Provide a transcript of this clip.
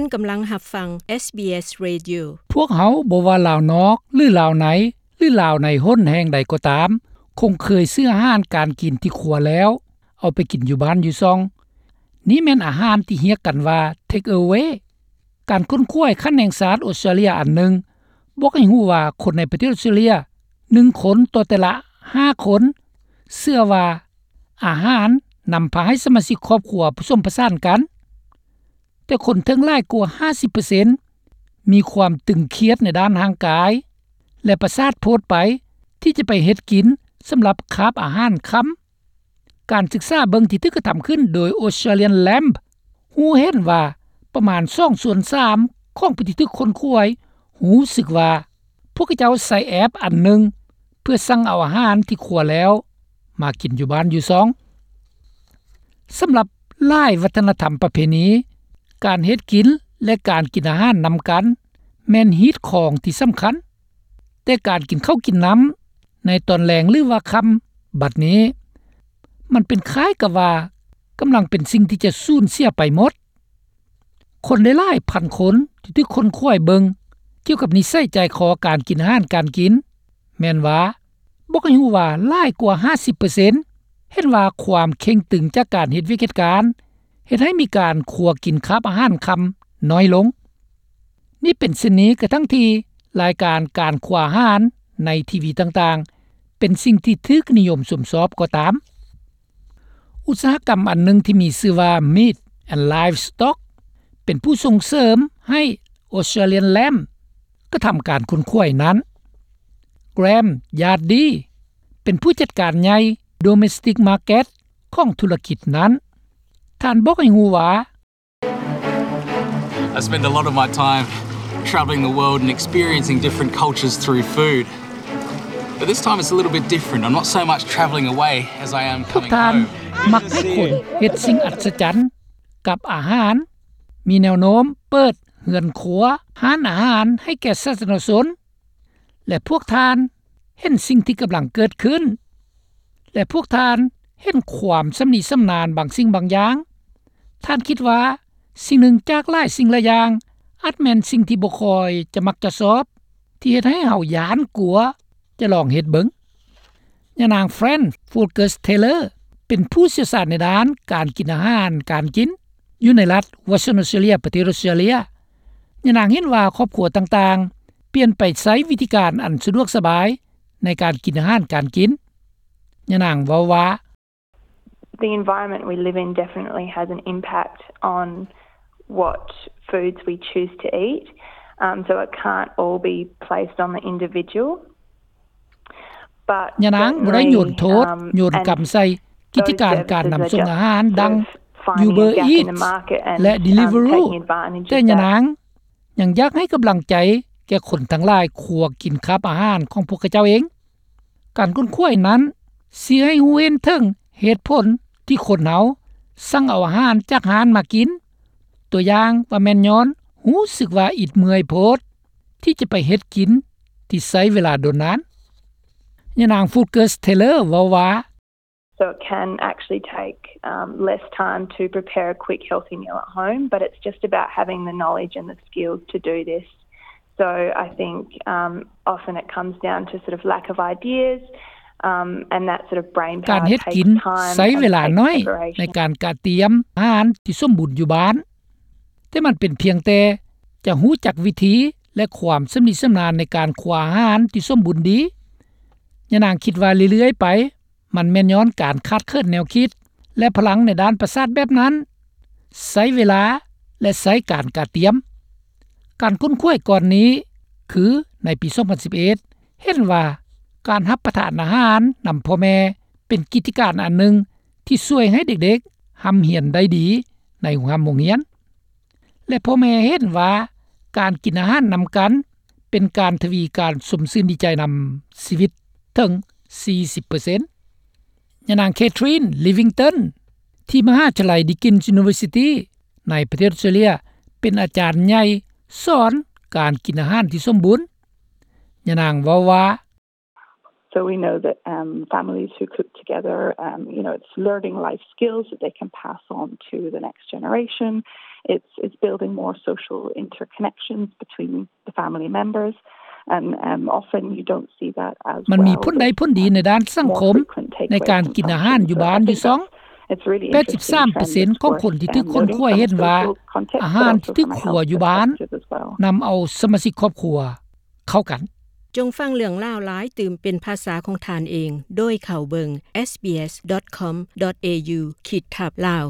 ທ່ານກຳລັງຮັບຟັງ ເອສບີເອສ Radio. ພວກເຮົາ ບໍ່ວ່າລາວນອກ ຫຼື ລາວໃນ ຫຼື ລາວໃນຫົນແຫ່ງໃດກໍຕາມ ຄົງເຄີຍຊື້ອາຫານການກິນທີ່ຄົວແລ້ວ ເອົາໄປກິນຢູ່ບ້ານຢູ່ຊ່ອງ. ນີ້ແມ່ນອາຫານທີ່ຮຽກກັນວ່າ Take Away. ການຄົ້ນຄວ້າຂັ້ນແຫ່ງຊາດອົດສະຕຣາເລຍອັນໜຶ່ງ ບອກໃຫ້ຮູ້ວ່າຄົນໃນປະເທດອົດສະຕຣາເລຍ ໜຶ່ງຄົນຕໍ່ແຕ່ລະຫ້າຄົນ ເຊື່ອວ່າອາຫານນຳພາໃຫ້ສະມາຊິກຄອບຄົວປະສົມປະສານກັນ. ແຕ່ຄົນເຖິງຫຼາຍກວ່າຫ້າສິບເປີເຊັນ ມີຄວາມຕຶງຄຽດໃນດ້ານຮ່າງກາຍ ແລະ ປະສາດໂພດໄປ ທີ່ຈະໄປເຮັດກິນສຳລັບຄາບອາຫານຄ່ຳ. ການສຶກສາເບິ່ງທີ່ຖືກກະທຳຂຶ້ນໂດຍ Australian Lamb ຮູ້ເຫັນວ່າປະມານສອງສ່ວນສາມຂອງຜູ້ທີ່ຖືກຄົ້ນຄວ້າ ຮູ້ສຶກວ່າພວກເຂົາເຈົ້າໃຊ້ແອັບອັນໜຶ່ງ ເພື່ອສັ່ງເອົາອາຫານທີ່ຄົວແລ້ວມາກິນຢູ່ບ້ານຢູ່ຊ່ອງ. ສຳລັບຫຼາຍວັດທະນະທຳປະເພນີ, ການເຮັດກິນ ແລະ ການກິນອາຫານນຳກັນ ແມ່ນຮີດຄອງທີ່ສຳຄັນ, ແຕ່ການກິນເຂົ້າກິນນ້ຳໃນຕອນແລງ ຫຼືວ່າຄ່ຳ ບັດນີ້ ມັນເປັນຄ້າຍກັບວ່າກຳລັງເປັນສິ່ງທີ່ຈະສູນເສຍໄປໝົດ. ຄົນໄດ້ຫຼາຍພັນຄົນທີ່ຖືກຄົ້ນຄວ້າເບິ່ງກ່ຽວກັບນິໄສໃຈຄໍການກິນອາຫານການກິນ ແມ່ນວ່າ ບອກໃຫ້ຮູ້ວ່າຫຼາຍກວ່າຫ້າສິບເປີເຊັນ ເຫັນວ່າຄວາມເຄັ່ງຕຶງຈາກການເຮັດວຽກເຮັດການ ເຮັດໃຫ້ມີການຄົວກິນຄາບອາຫານຄ່ຳນ້ອຍລົງ. ນີ້ເປັນເຊັ່ນນີ້ກະທັງທີ່ລາຍການການຄົວອາຫານໃນທີວີຕ່າງໆ ເປັນສິ່ງທີ່ຖືກນິຍົມຊົມຊອບກໍຕາມ. ອຸດສາຫະກຳອັນໜຶ່ງທີ່ມີຊື່ວ່າ Meat and Livestock ເປັນຜູ້ສົ່ງເສີມໃຫ້ Australian Lamb ກະທຳການຄົ້ນຄວ້ານັ້ນ. Graham Yardy ເປັນຜູ້ຈັດການໃຫຍ່ Domestic Market ຂອງທຸລະກິດນັ້ນ. ທ່ານບອກໃຫ້ຮູ້ວ່າ I spend a lot of my time travelling the world and experiencing different cultures through food. But this time it's a little bit different. I'm not so much travelling away as I am coming home. ພວກທ່ານມັກໃຫ້ຄົນເຮັດສິ່ງອັດສະຈັນກັບອາຫານ, ມີແນວໂນ້ມເປີດເຮືອນຄົວ, ຮ້ານອາຫານໃຫ້ແກ່ສາທາລະນະຊົນ ແລະ ພວກທ່ານເຫັນສິ່ງທີ່ກຳລັງເກີດຂຶ້ນ ແລະ ພວກທ່ານເຫັນຄວາມຊຳນິຊຳນານບາງສິ່ງບາງຢ່າງ. ທ່ານຄິດວ່າສິ່ງໜຶ່ງຈາກຫຼາຍສິ່ງຫຼາຍຢ່າງ ອາດແມ່ນສິ່ງທີ່ບໍ່ຄ່ອຍຈະມັກຈະຊອບ ທີ່ເຮັດໃຫ້ເຮົາຢ້ານກົວຈະລອງເຮັດເບິ່ງ. ຍານາງ Fran Fulkes Taylor ເປັນຜູ້ຊ່ຽວຊານໃນດ້ານການກິນອາຫານການກິນ ຢູ່ໃນລັດ Western Australia ປະເທດອົດສະຕຣາເລຍ. ຍານາງເຫັນວ່າຄອບຄົວຕ່າງໆ ປ່ຽນໄປໃຊ້ວິທີການອັນສະດວກສະບາຍໃນການກິນອາຫານການກິນ. ຍານາງເວົ້າວ່າ The environment we live in definitely has an impact on what foods we choose to eat, um, so it can't all be placed on the individual. ຍານາງບໍ່ໄດ້ໂຍນໂທດ ໂຍນກຳໃສ່ກິດຈະການການນຳສົ່ງອາຫານ ດັ່ງ Uber Eats ແລະ Deliveroo, ແຕ່ຍານາງຍັງຢາກໃຫ້ກຳລັງໃຈແກ່ຄົນທັງຫຼາຍຄົວກິນຄາບອາຫານຂອງພວກເຂົາເຈົ້າເອງ. ການຄົ້ນຄວ້ານັ້ນຊີ້ໃຫ້ຮູ້ເຫັນເຖິງເຫດຜົນທີ່ຄົນເຮົາສັ່ງເອົາອາຫານຈາກຮ້ານມາກິນ, ຕົວຢ່າງວ່າແມ່ນຍ້ອນຮູ້ສຶກວ່າອິດເມື່ອຍໂພດ ທີ່ຈະໄປເຮັດກິນທີ່ໃຊ້ເວລາດົນນານ. ຍານາງ Fulkes Taylor ເວົ້າວ່າ So it can actually take, um, less time to prepare a quick healthy meal at home, but it's just about having the knowledge and the skills to do this. So I think, um, often it comes down to sort of lack of ideas, um, and that sort of brain power takes time and takes preparation. ການເຮັດກິນໃຊ້ເວລາໜ້ອຍໃນການກະຕຽມອາຫານທີ່ສົມບູນຢູ່ບ້ານ, ແຕ່ມັນເປັນພຽງແຕ່ຈະຮູ້ຈັກວິທີ ແລະ ຄວາມຊຳນິຊຳນານໃນການຄົວອາຫານທີ່ສົມບູນດີ. ຍານາງຄິດວ່າເລື້ອຍໆໄປ ມັນແມ່ນຍ້ອນການຂາດເຂີນແນວຄິດ ແລະ ພະລັງໃນດ້ານປະສາດແບບນັ້ນ ໃຊ້ເວລາ ແລະ ໃຊ້ການກະຕຽມ. ການຄົ້ນຄວ້າກ່ອນນີ້ ຄືໃນປີສອງພັນສິບເອັດ ເຫັນວ່າການຮັບປະທານອາຫານນຳພໍ່ແມ່ ເປັນກິດຈະການອັນໜຶ່ງທີ່ຊ່ວຍໃຫ້ເດັກໆຮ່ຳຮຽນໄດ້ດີໃນໂຮງຮ່ຳໂຮງຮຽນ. ແລະ ພໍ່ແມ່ເຫັນວ່າການກິນອາຫານນຳກັນເປັນການທະວີການຊົມຊື່ນດີໃຈນຳຊີວິດເຖິງສີ່ສິບເປີເຊັນ. ຍານາງ Catherine Livington ທີ່ມະຫາວິທະຍາໄລ Deakin University ໃນປະເທດອົດສະຕຣາເລຍ ເປັນອາຈານໃຫຍ່ສອນການກິນອາຫານທີ່ສົມບູນ. ຍານາງເວົ້າວ່າ So we know that um, families who cook together, um, you know, it's learning life skills that they can pass on to the next generation. It's, it's building more social interconnections between the family members. And um, often you don't see that as ມັນມີຜົນໄດ້ຜົນດີໃນດ້ານສັງຄົມ ໃນການກິນອາຫານຢູ່ບ້ານຢູ່ຊ່ອງ. ແປດສິບສາມເປີເຊັນຂອງຄົນທີ່ຖືກຄົ້ນຄວ້າເຫັນວ່າ ອາຫານທີ່ຖືກຄົວຢູ່ບ້ານນຳເອົາສະມາຊິກຄອບຄົວເຂົ້າກັນ. ຈົ່ງຟັງເລື່ອງລາວຫຼາຍຕື່ມເປັນພາສາຂອງທ່ານເອງ ໂດຍເຂົ້າເບິ່ງ sbs.com.au ຂີດທັບ Lao.